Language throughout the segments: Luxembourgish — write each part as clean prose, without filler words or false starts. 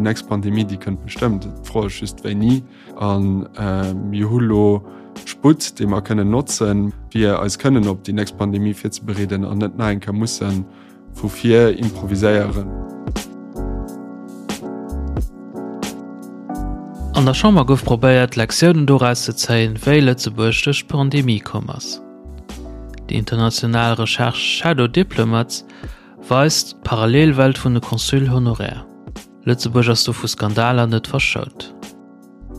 déi nächst Pandemie, déi kënnt bestëmmt. D'Fro ass just wéini. A mir hu lo Sputt, dee mer kënnen notzen, fir eis kënnen op déi nächst Pandemie virzebereeden an net nach eng Kéier musse vu vir improviséieren. An der Chamber gouf probéiert, Lektiounen doraus ze zéien, wéi Lëtzebuerg duerch d'Pandemie komm ass. Déi international Recherche Shadow Diplomats weist d'Parallelwelt vun de Consuls honoraires. Lëtzebuerg ass do vu Skandaler net verschount.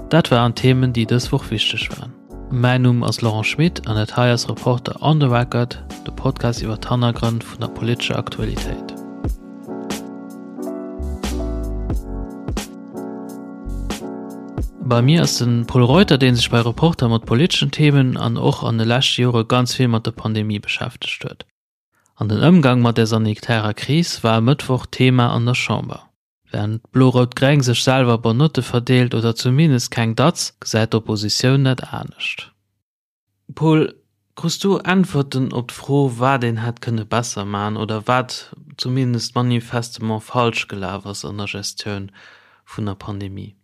Dat waren d'Themen, déi dës Woch wichteg waren. Mäin Numm ass Laurent Schmit an dat hei ass Reporter on the Record, de Podcast iwwer d'Hannergrënn vun der politescher Aktualitéit. Bei mir ass de Pol Reuter, dee sech bei Reporter mat politeschen Themen an och an de leschte Jore ganz vill mat der Pandemie beschäftegt huet. An den Ëmgang mat der sanitärer Kris war e Mëttwoch Thema an der Chamber. Wärend Blo-Rout-Gréng sech selwer Bonne Notte verdeelt oder zumindest keng Datz, gesäit d'Oppositioun dat anescht. Paul, krus du Äntwerten op d'Fro, wat een hätt kënne besser maachen oder wat zumindest manifestement falsch gelaf ass an der Gestioun vun der Pandemie?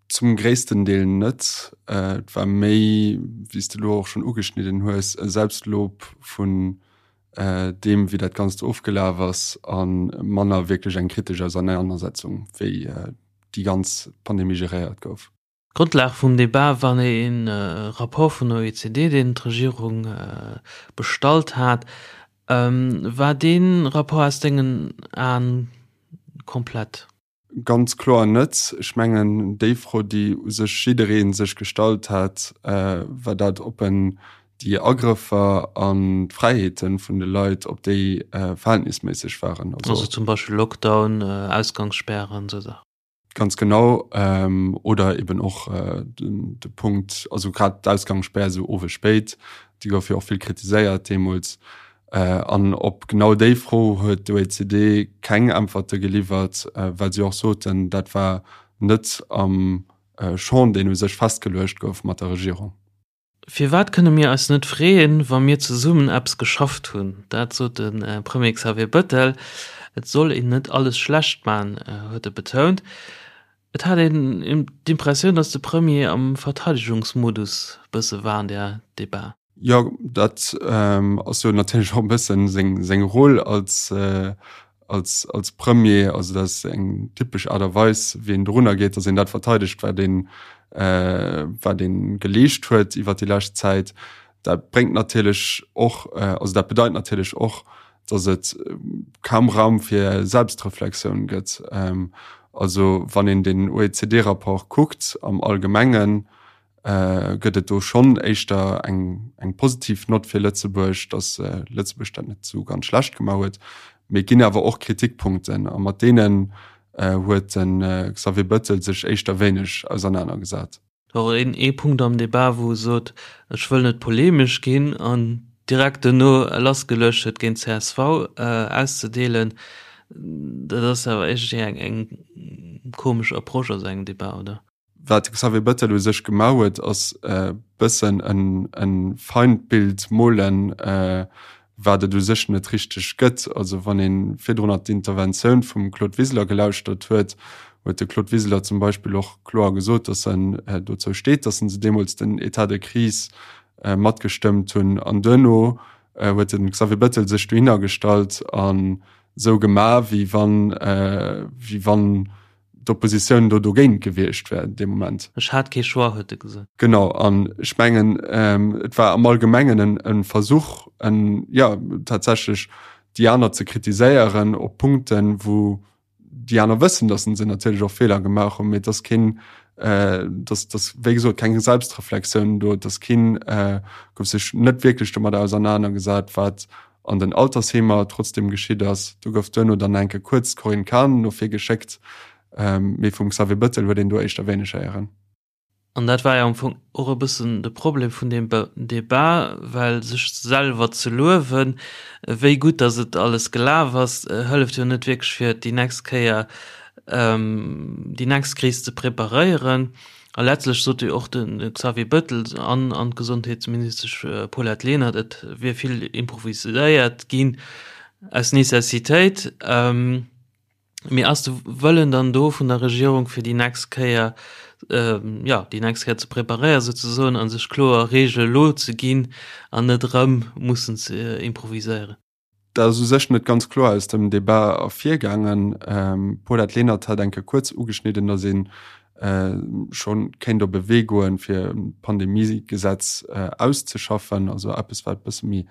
Zum gréissten Deel net. Et war méi, wéi s de elo och schonn ugeschnidden hues, e Selbstlob vun deem, wéi dat Ganzt ofgelaf ass, a manner wierklech eng kritesch Ausernanersetzung, wéi déi ganz Pandemie geréiert gouf. D'Grondlag vum Debat war e Rapport vun der OECD, deen d'Regierung bestallt hat. War dee Rapport aus dengen Aen komplett? Ganz kloer net. Ech mengen, déi Fro, déi u sech jidderee sech gestallt hat, war dat, ob en déi Agrëffer an d'Fräiheete vun de Leit, ob déi verhältnisméisseg waren. Also zum Beispill Lockdown, Ausgangsspären, esou Saachen. Ganz genau. Oder eben och de Punkt, also grad d'Ausgangsspär esou owes spéit, déi gouf jo och vill kritiséiert deemools. An op genau déi Fro huet d'OECD keng Äntwerte geliwwert, well si och soten, dat war net am Champ, deen u sech festgeluecht gouf mat der Regierung. Firwat kënne mir eis net freeën, wa mir zesummen eppes geschafft hunn? Dat sot de Premier Xavier Bëttel. Et soll een net alles schlecht man, huet e betount. Et hat een d'Impressioun, datt de Premier am Verteidegungsmodus bësse war an där Debat. Jo, dat ass jo natierlech och e bëssen seng, seng Roll als, als, als Premier. Also dat ass eng typesch Aart a Weis, wéi een dorunner geet, datt een dat verteidegt, wat een, wat ee geleescht huet iwwer déi lescht Zäit. Dat bréngt natierlech och, also dat bedeit natierlech och, datt et kaum Raum fir Selbstreflexioun gëtt. Also wann een den OECD-Rapport kuckt am Allgemengen, gëtt et do schonn éischter eng, eng positiv Nott fir Lëtzebuerg, datt Lëtzebuerg dat net esou ganz schlecht gemaach huet. Mee et ginn awer och Kritikpunkten a mat deenen huet de Xavier Bëttel sech éischter wéineg ausernanergesat. Och een ee Punkt am Debat, wou e sot, ech wëll net polemesch ginn an direkt duerno lassgeluecht huet géint csv auszedeelen. Dat ass awer iergendwéi eng, eng komesch Approche a sou engem Debat, oder? Wat de Xavier Bettel u sech gemaach huet, ass e bëssen e Feindbild molen, wat et u sech net richteg gëtt. Also wann ee virdrunner d'Interventioun vum Claude Wiseler gelauschtert huet, huet de Claude Wiseler zum Beispill och kloer gesot, datt en dozou steet, datt se deemools den État de crise matgestëmmt hunn. An duerno huet de Xavier Bettel sech dohinner gestallt an esou gemaach, wéi wann, wéi wann d'Oppositioun do dogéint gewiescht wär dee Moment. Ech hat kee Choix, huet e gesot. Genau, an ech mengen, et war am Allgemengen e Versuch, en, jo, tatsächlech déi aner ze kritiséieren op Punkten, wou déi aner wëssen, datt se natierlech och Feeler gemaach hunn, mee et ass keen, dass, dass, wéi gesot, keng Selbstreflexioun do, et ass keen, gouf sech net wierklech domadder ausernanergesat, wat an den Altersheemer trotzdem geschitt ass. Do gouf duerno dann enke kuerz d'Corinne Cahen no vir geschéckt, mee vum Xavier Bëttel huet een do éischter wéineg héieren. An dat war jo am Fong och e bëssen de Problem vun deem Debat, well sech selwer ze luewen, wéi gutt datt et alles gelaf ass, hëlleft jo net wierklech fir déi nächst Kéier déi nächst Kris ze preparéieren. A letztlech sot jo och de Xavier Bëttel an an d'Gesondheetsministesch Paulette Lenert, et wier vill improviséiert ginn aus Necessitéit. Mee ass de Wëllen dann do vun der Regierung fir déi nächst Kéier, jo, déi nächst Kéier ze preparéieren souzesoen a sech kloer Reegele lo ze ginn an net erëm mussen ze improviséieren? Dat ass u sech net ganz kloer aus dem Debat ervirgaangen. D'Paulette Lenert hat eng Kéier kuerz ugeschnidden, datt ee scho kéint op e Wee goen, fir e Pandemiegesetz auszeschaffen, also eppes wat e bësse méi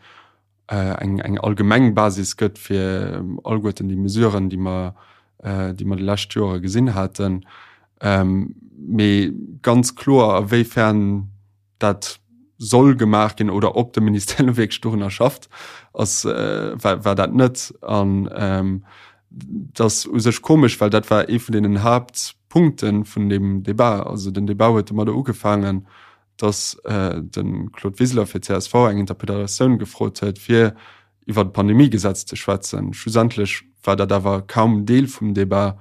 eng eng allgemeng Basis gëtt fir alleguerten déi Mesuren, déi mer, déi mer déi lescht Jore gesinn haten. Mee ganz kloer, a wéi fern dat soll gemaach ginn oder ob de Ministère elo wierklech dorunner schafft, ass, war, war dat net. An dat ass u sech komesch, well dat war ee vun deenen Haaptpunkte vun deem Debat. Also den Debat huet domadder ugefaangen, dass de Claude Wiseler fir csv eng Interpellatioun gefrot huet, fir iwwer d'Pandemiegesetz ze schwätzen. Schlussendlech war dat awer kaum Deel vum Debat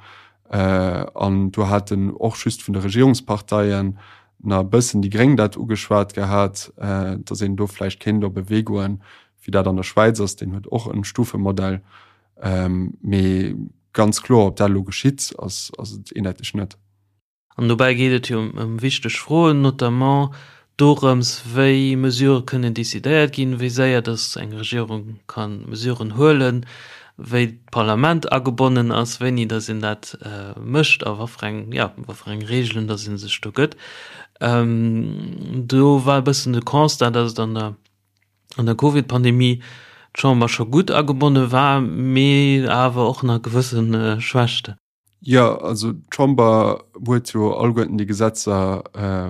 an do haten och just vun de Regierungsparteien nach e bëssen déi Gréng dat ugeschwat gehat, dass een do vläicht kéint op e Wee goen, wéi dat an der Schwäiz ass, deen huet och e Stufemodell. Mee ganz kloer, ob dat elo geschitt, ass et eendeiteg net. An dobäi geet et jo ëm wichteg Froen, notamment dorëms, wéi Mesurë kënnen decidéiert ginn, wéi séier datt eng Regierung ka Mesuren huelen, wéi d'Parlament agebonnen ass, wéini datt een dat mécht a wat fir eng, jo, wat fir eng Reegelen datt ee sech do gëtt. Do war e bëssen de Constat, datt et an der an der Covid-Pandemie d'Chamber scho gutt agebonne war, mee awer och nach gewësse Schwächten. Jo, also d'Chamber huet jo alleguerten déi Gesetzer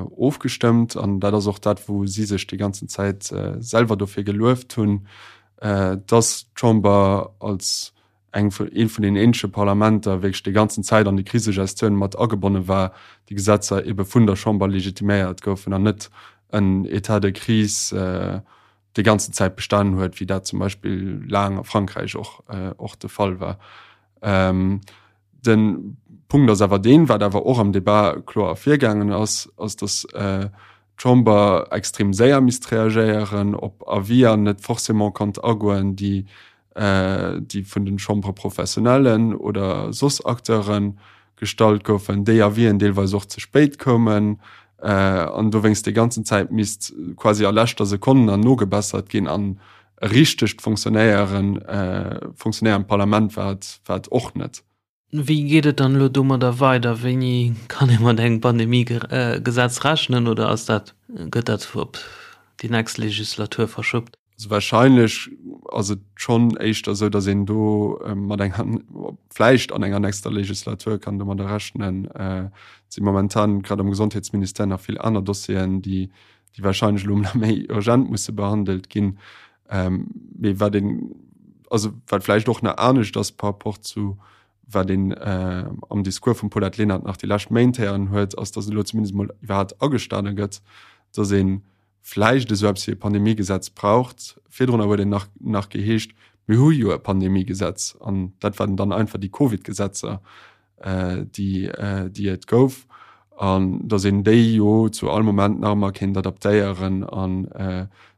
ofgestëmmt an dat ass och dat, wou si sech déi ganzen Zäit selwer dofir gelueft hunn, dass d'Chamber als eng vun, eent vun den eenzege Parlamenter wierklech déi ganzen Zäit an déi Krisegestioun mat agebonne war, déi Gesetzer ebe vun der Chamber legitiméiert goufen an net en État de crise déi ganzen Zäit bestanen huet, wéi dat zum Beispill laang a Frankräich och, och de Fall war. Ähm, den Punkt ass awer deen, wat awer och am Debat kloer ervirgaangen ass, ass dass äh, d'Chamber extrem séier misst reagéieren, op Avier net forcément konnt agoen, déi äh, déi vun den Chambres professionnellen oder soss Acteure gestallt goufen, déi Avisen deelweis och ze spéit koumen äh, an dowéinst déi ganzen Zäit misst quasi a leschter Sekonn an nogebessert ginn an e richtegt Fonctionnéieren, äh, fonctionnéierend Parlament war et, war et och net. Wéi geet et dann elo domadder weider? Wéini kann ee mat engem Pandemiegesetz rechnen oder ass dat, gëtt dat op déi nächst Legislatur verschobt? Also wahrscheinlech ass et schonn éischter esou, datt een do mat enger, vläicht an enger nächster Legislatur kann domadder rechnen. Et si momentan grad am Gesondheetsministère nach vill aner Dossieren, déi, déi wahrscheinlech elo nach méi urgent musse behandelt ginn. Mee wat een, also wat vläicht och nach anescht ass par rapport zu wat een am Discours vum Paulette Lenert nach déi lescht Méint héieren huet, ass, datt elo zumindest emol iwwerhaapt agestane gëtt, datt ee vläicht esou eppes wéi e Pandemiegesetz braucht. Virdrunner huet een nach, nach geheescht, mir hu jo e Pandemiegesetz an dat waren dann einfach déi Covid-Gesetzer, déi, déi et gouf an datt een déi jo zu all Moment nach ëmmer kéint adaptéieren an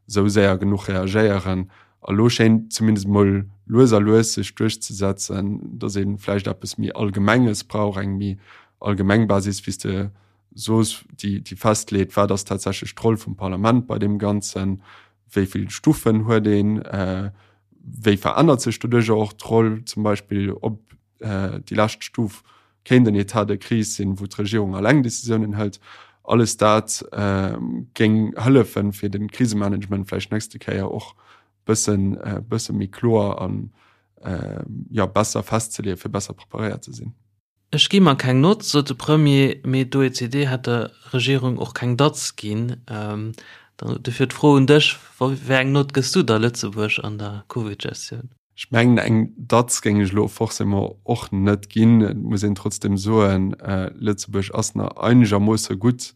esou séier genuch reagéieren. A lo schéint zumindest emol lues a lues sech duerchzesetzen, datt ee vläicht eppes méi Allgemenges brauch, eng méi allgemeng Basis, wéi s de soos, déi, déi festleet, wat ass tatsächlech d'Roll vum Parlament bei deem Ganzen, wéi vill Stufen huet een, wéi verännert sech doduercher och d'Roll, zum Beispill ob déi lescht Stuf kéint en État de crise sinn, wou d'Regierung alleng Decisiounen hëlt. Alles dat géing hëllefen, fir de Krisemanagement vläicht nächste Kéier och bëssen, bësse méi kloer an, jo, besser festzeleeën, fir besser preparéiert ze sinn. Ech gi mer keng Nott, sot de Premier, mee d'OECD hätt der Regierung och keng Datz ginn. Dofir d'Fro un dech, Wéi eng Nott gëss du da Lëtzebuerg an der Covid-Gestioun? Ech mengen, eng Datz géing ech elo forcément och net ginn. Et muss een trotzdeem soen, Lëtzebuerg ass nach einegermoosse gutt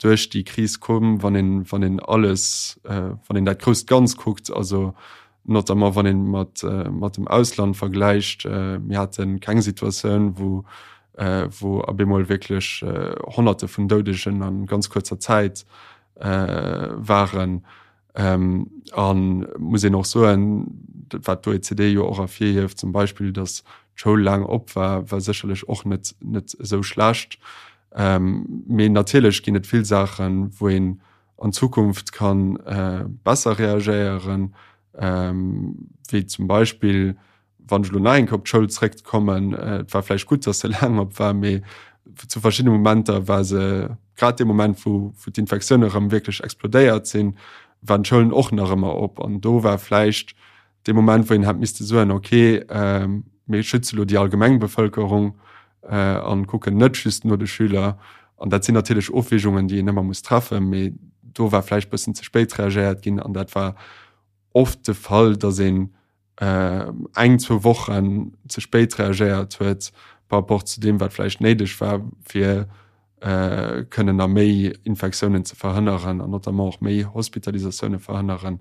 duerch déi Kris komm, wann een, wann een alles, wann een dat grousst Ganz kuckt, also notamment wann een mat, mat dem Ausland vergläicht. Mir hate keng Situatioun, wou, wou op eemol wierklech Honnerte vun Doudegen a ganz kuerzer Zäit waren. A muss een och soen, wat d'OECD jo och ervirhieft zum Beispill, datt. d'Schoul laang op war, war sécherlech och net net esou schlecht. Mee natierlech ginn et vill Saachen, wou een an Zukunft kann besser reagéieren, wéi zum Beispill wann ech elo nach eng Kéier op d'Schoul zréckkommen, et war vläicht gutt, datt se laang op war, mee zu verschiddene Momenter war se, grad dee Moment, wou wou d'Infektioune erëm wierklech explodéiert sinn, waren d'Schoulen och nach ëmmer op. An do war vläicht dee Moment, wou een hätt misste soen, okay, mir schütze lo déi allgemeng Bevëlkerung an kucken net just no de Schüler. An dat sinn natierlech Ofwägungen, déi een ëmmer muss treffen, mee do war vläicht bëssen ze spéit reagéiert ginn an dat war oft de Fall, datt een eng, zwou Wochen ze spéit reagéiert huet par rapport zu deem, wat vläicht néideg war, fir kënnen nach méi Infektiounen ze verhënneren an notamment och méi Hospitalisatioune verhënneren.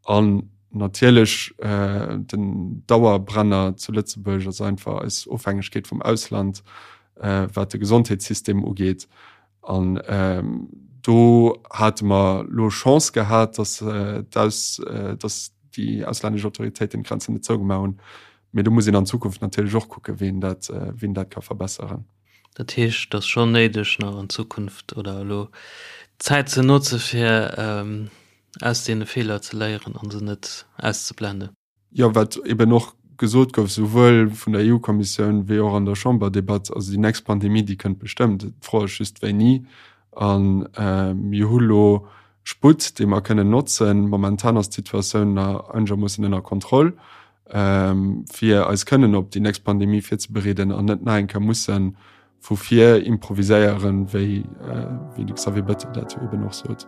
An natierlech den Dauerbrenner zu Lëtzebuerg ass einfach eis Ofhängegkeet vum Ausland, wat de Gesondheetssystem ugeet. An do hate mer elo Chance gehat, datt d'Aus, datt déi auslännesch Autoritéiten d'Grenzen net zougemaach hunn. Mee do muss een an Zukunft natierlech och kucken, wéi een dat, wéi een dat ka verbesseren. Dat heescht, et ass schonn néideg, nach an Zukunft oder elo d'Zäit ze notze fir aus deene Feeler ze léieren a se net auszeblenden. Jo, wat eben och gesot gouf, souwuel vun der EU-Kommissioun wéi och an der Chamberdebatt, also déi nächst Pandemie, déi kënnt bestëmmt. D'Fro ass just, wéini. A mir hu lo Sputt, dee mer kënnen notzen. Momentan ass d'Situatioun nach einegermoossen ënner Kontroll, fir eis kënnen op déi nächst Pandemie virzebereeden an net nach eng Kéier musse vu vir improviséieren, wéi de Xavier Bettel dat jo eben och sot.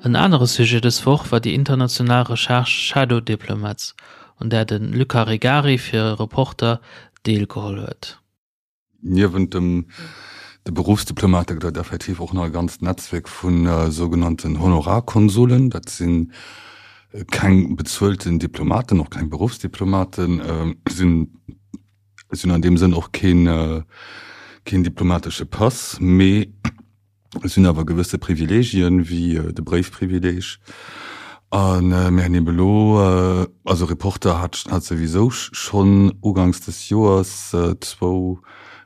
En anere Sujet dës Woch war déi international Recherche Shadow Diplomats, un där de Luca Regari fir Reporter deelgeholl huet. Niewent dem de Beruffsdiplomate gëtt et effektiv och nach e ganzt Netzwierk vu sougenannten Honorarkonsulen. Dat si keng bezuelten Diplomaten, och keng Beruffsdiplomaten, sinn hunn an deem Sënn och keen keen diplomatesche Pass, mee Et sinn awer gewësse Privilegien, wéi de Bréifprivileg. A mir hunn ebe elo, also Reporter hat hat souwisou schonn uganks des Joers zwou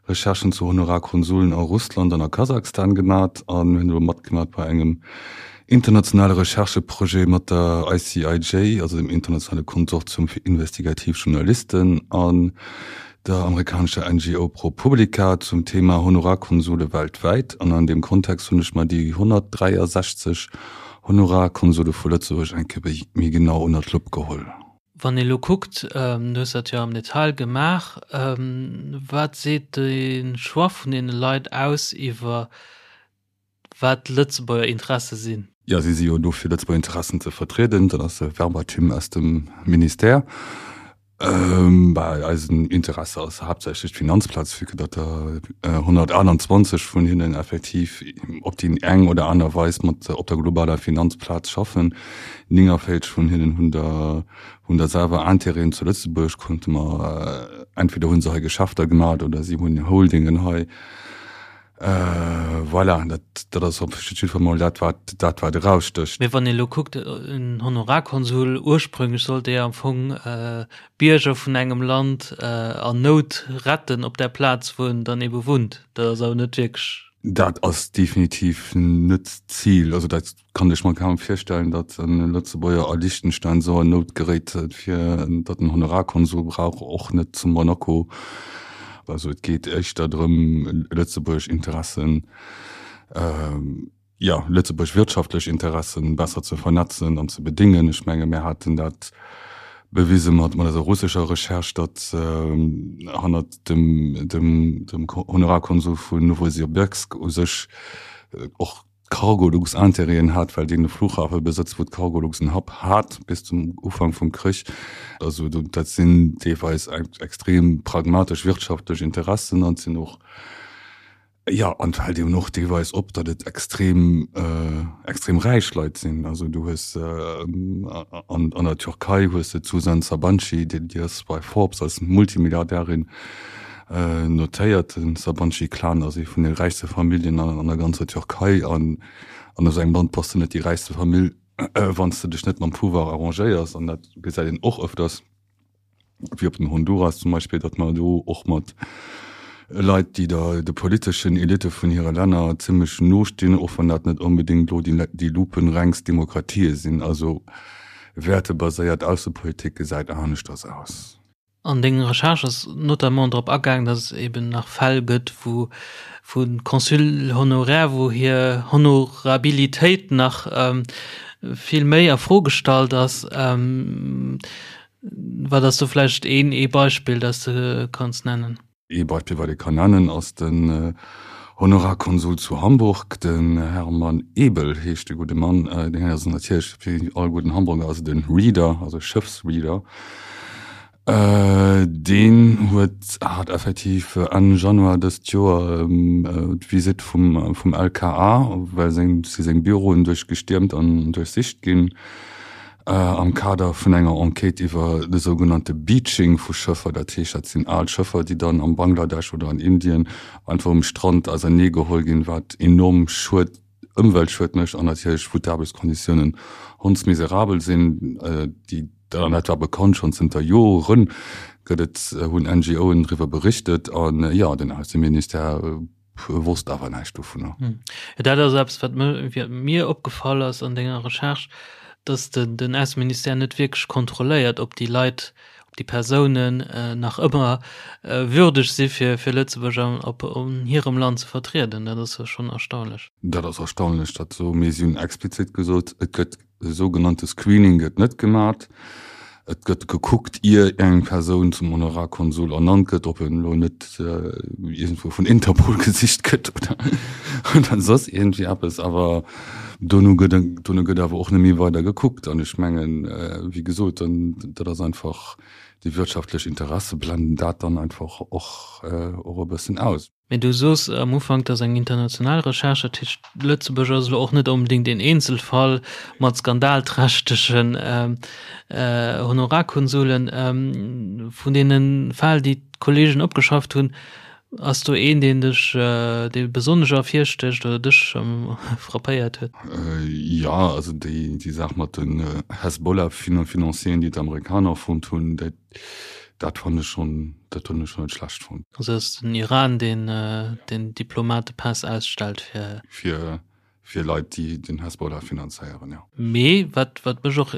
Recherchen zu Honorarkonsullen a Russland an a Kasachstan gemat. A mir hunn elo matgemat bei engem internationale Rechercheprojet mat der ICIJ, also dem internationale Konsortium fir investigativ Journalisten. An der amerikanescher NGO ProPublica zum Thema Honorarkonsule weltwäit an an deem Kontext hunn ech mer déi 163 Honorarkonsule vu Lëtzebuerg eng Kéier méi genau ënner d'Lupp geholl. Wann ee lo kuckt, du hues dat jo am Detail gemaach, wat seet de Choix vun deene Leit aus iwwer wat Lëtzebuerger Interesse sinn. Jo, si si jo do fir Lëtzebuerger Interessen ze vertrieden. Dat ass e Verbatim aus dem Ministère. Bah, eisen Interesse ass haaptsächlech d'Finanzplaz, vue que datt der 128 vun hinnen effektiv op déi eng oder aner Weis mat op der globaler Finanzplaz schaffen. 49 vun hinnen hunn der hunn der selwer Intérêten zu Lëtzebuerg, konnte mer entweder hu se hei Geschäfter gemat oder si hunn Holdingen hei. Voilà, dat, dat ass op jiddwer Fall mol dat, wat, dat, wat erausstécht. Mee wann ee lo kuckt, en Honorarkonsul, ursprünglech sollt dee am Fong Bierger vun engem Land an Nout retten op där Plaz, wou en dann ebe wunnt. Dat ass awer net wierklech. Dat ass definitiv net d'Zil. Also dat Kann ech mer kaum virstellen, datt e Lëtzebuerger a Liechtenstein esou an Nout geréit, fir datt en Honorarkonsul brauch, och net zu Monaco. Also et geet éischter drëm, lëtzebuergesch Interessen, jo, lëtzebuergesch wirtschaftlech Interessen besser ze vernetzen an ze bedéngen. Ech menge mir haten dat bewise mat eiser russescher Recherche, datt hannert dem Honorarkonsul vun Nowosibirsk u sech och d'Cargolux Intérêten hat, well deen e Flughafe besëtzt, wou d'Cargolux en Hub hat bis zum Ufank vum Krich. Also dat sinn deelweis extrem pragmatesch wirtschaftlech Interessen an et sinn och, jo, an et fält eben och deelweis op, datt et extrem, extrem räich Leit sinn. Also du hues an der Türkei hues de d'Suzan Sabanci, déi ass bei Forbes als Multimilliardärin Notéiert, Den Sabanci-Clan ass ee vun de räichste Familljen an der ganzer Türkei an. An esou engem Land bass de net déi räichste Famill, wann s de dech net mam Pouvoir arrangéiers. An dat gesäit een och ëfters, wéi op den Honduras zum Beispill, datt mer do och mat Leit, déi der de politeschen Elitte vun hire Länner zimmlech no stinn, och wann dat net onbedéngt elo déi lupenrengst Demokratië sinn. Also wäertebaséiert Aussepolitik gesäit aneschters aus. An deng Recherche ass notamment drop agaang, datt et eben nach Fäll gëtt, wou vu Consuls honoraires, wou hir Honorabilitéit nach vill méi a Fro gestallt ass. Wat ass do vläicht een ee Beispill, dat s de kanns nennen? Ee Beispill, wat ee kann nennen, ass den Honorarkonsul zu Hamburg, den Hermann Ebel heescht de gudde Mann. Deen ass natierlech, wéi all gudden Hamburger, ass et e Reeder, also e Schëffsreeder. Deen huet, hat effektiv Enn Januar dëst Joer d'Visitt vum, vum LKA, well seng, si seng Büroen duerchgestiermt an duerchsicht ginn. Am Kader vun enger Enquête iwwer de sougenannte Beaching vu Schëffer, dat heescht, dat sinn al Schëffer, déi dann am Bangladesch oder an Indien einfach um Strand ausernee geholl ginn, wat enorm Schued, Ëmweltschued mécht an natierlech wou d'Aarbechtskonditiounen hondsmiserabel sinn, déi, an dat war bekannt schonn zënter Joren, gëtt et, hunn NGOen driwwer berichtet an jo, den Ausseministère wosst awer näischt dovunner. Jo, dat ass eppes, wat mir opgefall ass an denger Recherche, dass den Ausseministère net wierklech kontrolléiert, ob déi Leit, ob déi Persounen nach ëmmer würdeg si fir fir Lëtzebuerg an op an hirem Land ze vertrieden. Dat ass jo schonn erstaunlech. Dat ass erstaunlech, dat esou, mee si hunn explizit gesot, et gëtt E sougenannte Screening gëtt net gemat. Et gëtt gekuckt, ier eng Persoun zum Honorarkonsul ernannt gëtt, ob en elo net iergendwou vun Interpol gesicht gëtt oder soss iergendwéi eppes. Awer dono gëtt, dono gëtt awer och net méi weider gekuckt. An ech mengen, wéi gesot, dann, dat ass einfach, déi wirtschaftlech Interesse blenden dat dann einfach och, och e bëssen aus. Mee du soos am Ufank, dat ass eng international Recherche, dat heescht, Lëtzebuerg ass elo och net onbedéngt een Eenzelfall mat skandalträchtegen Honorarkonsulen. Vun deene Fäll, déi d'Kollegen opgeschafft hunn, ass do een, deen dech, dee besonnesch ervirstécht oder dech frappéiert huet? Jo, also déi Saach mat den Hezbollah-Financieren, déi d'Amerikaner fonnt hunn, dat Dat fann ech schon, dat hunn ech schon net schlecht fonnt. Also ass den Iran deen den Diplomatepass ausstellt fir. Fir fir Leit déi den Hezbollah finanzéieren, jo. Mee wat wat mech och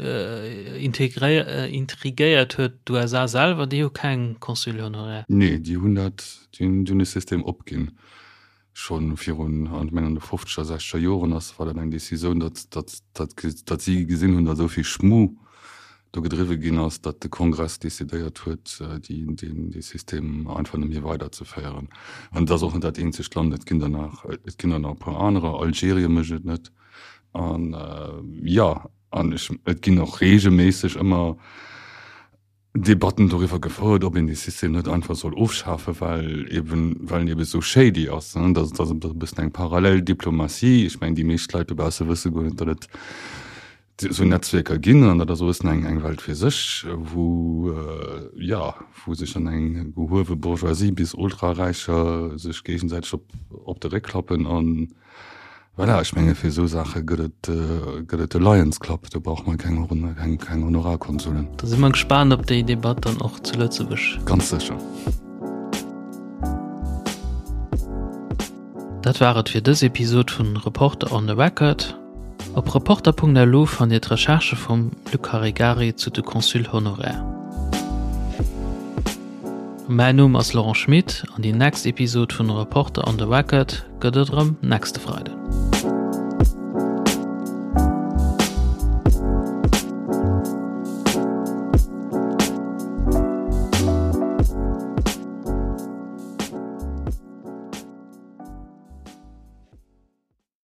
intrigéiert huet, d'USA selwer déi hu keng Consuls honoraires. Nee, déi hunn dat, déi hunn de System opginn. Scho virun, ech mengen an de fofzeger, sechzeger Joren ass, war dat eng Decisioun, datt, datt, datt, datt si gesinn hunn, datt esou vill Schmu do gedriwwe ginn ass, datt de Kongress decidéiert huet, déi, deen, dee System einfach net méi weiderzeféieren. An et ass och net dat eenzegt Land, et ginn der nach, et ginn der nach e puer anerer, Algerien mécht et net. An, jo, an ech, et ginn och reegelméisseg ëmmer Debatten doriwwer gefouert, ob een dee System net einfach soll ofschafen, well eben, well en eben esou shady ass. Dat ass e bëssen eng parallel Diplomatie. Ech mengen, déi meescht Leit dobausse wësse guer net, datt et esou Netzwierker ginn. An dat ass e bëssen eng, eng Welt fir sech, wou, jo, wou sech dann eng gehuewe Bourgeoisie bis Ultraräicher sech géigesäiteg op, op de Réck klappen an, Voilà, ech menge fir esou Saache gëtt et, gëtt et de Lions Club, do brauche mer keng, keng, keng Honorarkonsullen. Da si mer gespaant op déi Debatt dann och zu Lëtzebuerg. Ganz sécher. Dat war et fir dës Episod vun Reporter on the Record. Op reporter.lu fannt Dir d'Recherchë vum Luc Caregari zu de Consuls honoraires. Mäin Numm ass Laurent Schmit an déi next Episod vun Reporter on the Record gëtt et erëm nächste Freiden.